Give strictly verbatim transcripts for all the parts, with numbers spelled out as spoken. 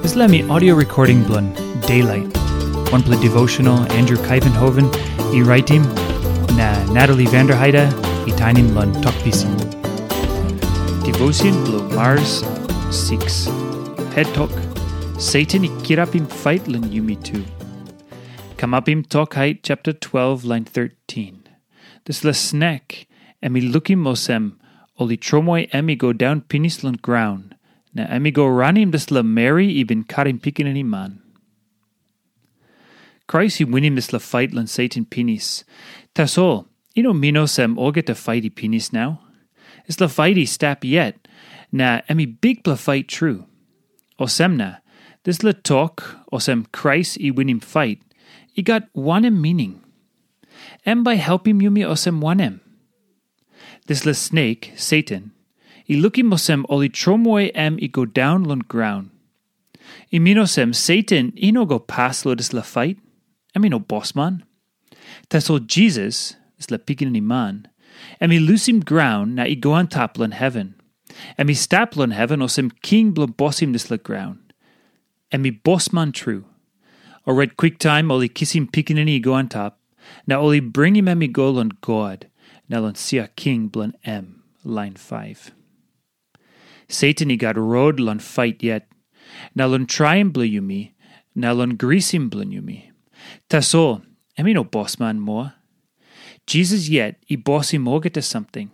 Dispela mi audio recording bilong Daylight, wanpela devotional Andrew Kaivenhoven i raitim, na Natalie Vanderheide i tainim long Tok Pisin. Devotion bilong Mars six. Het tok, Satan i kirapim fait long yumi tu. Kamapim Tok Hait chapter twelve, line thirteen. Dispela snek, em i lukim olsem, ol i tromoi em i go daun pinis long graun, na em i go ranim dispela meri i bin karim pikinini man. Krais i winim dispela fait long Satan pinis. Tasol, i no min olsem olgeta fait i pinis nau. Dispela fait i stap yet, na em i bikpela fait tru. Olsem na, dispela tok, olsem Krais i winim fait, i gat wanem mining? Em bai helpim yumi olsem wanem? Dispela snek, Satan, i lukim olsem ol i tromoi em i go daun long graun. I min olsem Satan i no go pas long dispela fait, em i no bosman. Tasol Jisas, dispela pikinini man, em i lusim graun na i go antap long heven. Em i stap long heven olsem king bilong bosim dispela graun. Em i bosman tru. Orait kwiktaim ol i kisim pikinini i go antap, na ol i bringim em i go long God, na long sia king bilong em, lain faiv. Satan i gat rot long fait yet, na long traim bilong yumi, na long grisim bilong yumi. Tasol, em i no bosman moa. Jisas yet i bosim olgeta samting.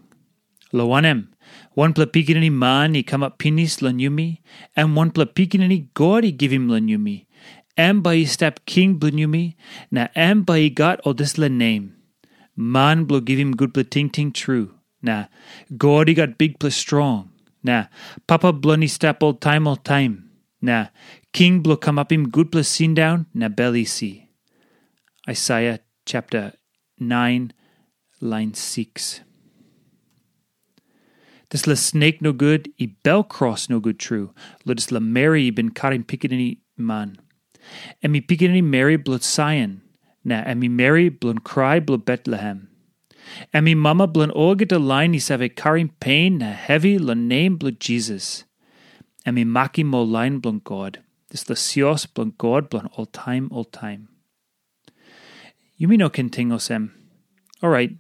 Lo wanem, wanpela pikinini man i kamap pinis long yumi, em wanpela pikinini God i givim long yumi. Em bai i stap king bilong yumi, na em bai i gat ol dispela nem. Man bilong givim gutpela tingting tru, na God i gat bikpela strong, na Papa bilong i stap oltaim oltaim, na King bilong kamapim gutpela sindaun na bel isi. Aisaia chapter nine, line six. Dispela snek nogut i bel kros nogut tru, lo dispela meri i bin karim pikinini man. Em i pikinini meri bilong Saion, na em i meri bilong krai bilong Betlehem. Em i mama bilong olgeta lain i save karim pen na hevi long nem bilong Jisas. Em i makim ol lain bilong God, dispela sios bilong God bilong oltaim oltaim. Yumi no ken ting olsem, orait,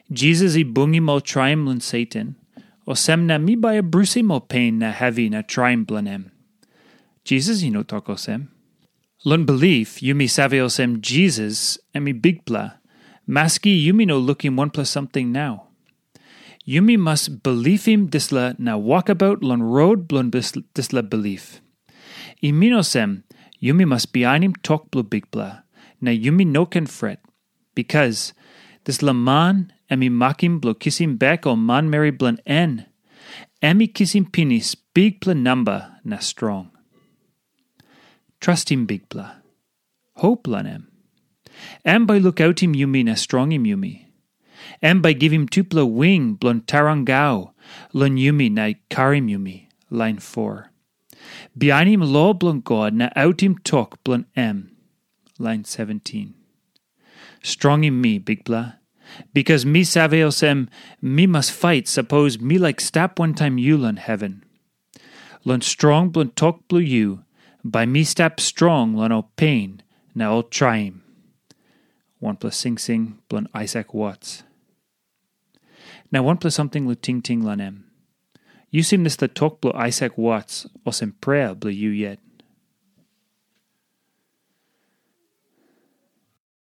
Jisas i bungim ol traim long Satan, olsem na mi bai abrusim ol pen na hevi na traim bilong em. Jisas i no tok olsem. Long bilip, yumi save olsem Jisas em i bikpela, maski yumi no lukim wanpela samting nau. Yumi mas bilipim dispela na wokabaut long rot bilong dispela bilip. I min olsem, yumi mas bihainim tok bilong Bikpela, na yumi no ken fret, bikas dispela man em i makim bilong kisim bek ol manmeri bilong en, em i kisim pinis bikpela namba na strong. Trastim Bikpela. Hop long em. Em bai lukautim yumi na strongim yumi. Em bai givim tupela wing bilong tarangau long yumi na i karim yumi, lain foa. Bihainim lo bilong God na autim tok bilong em, lain seventin. Strongim mi, Bikpela, bikas mi save olsem mi mas fait sapos mi laik stap wantaim yu long heven. Long strong bilong tok bilong yu, bai mi stap strong long ol pen na ol traim. Wanpela singsing bilong Aisak Wats. Na wanpela samting long tingting long em. Yu sim dispela tok bilong Aisak Wats olsem prea bilong yu yet.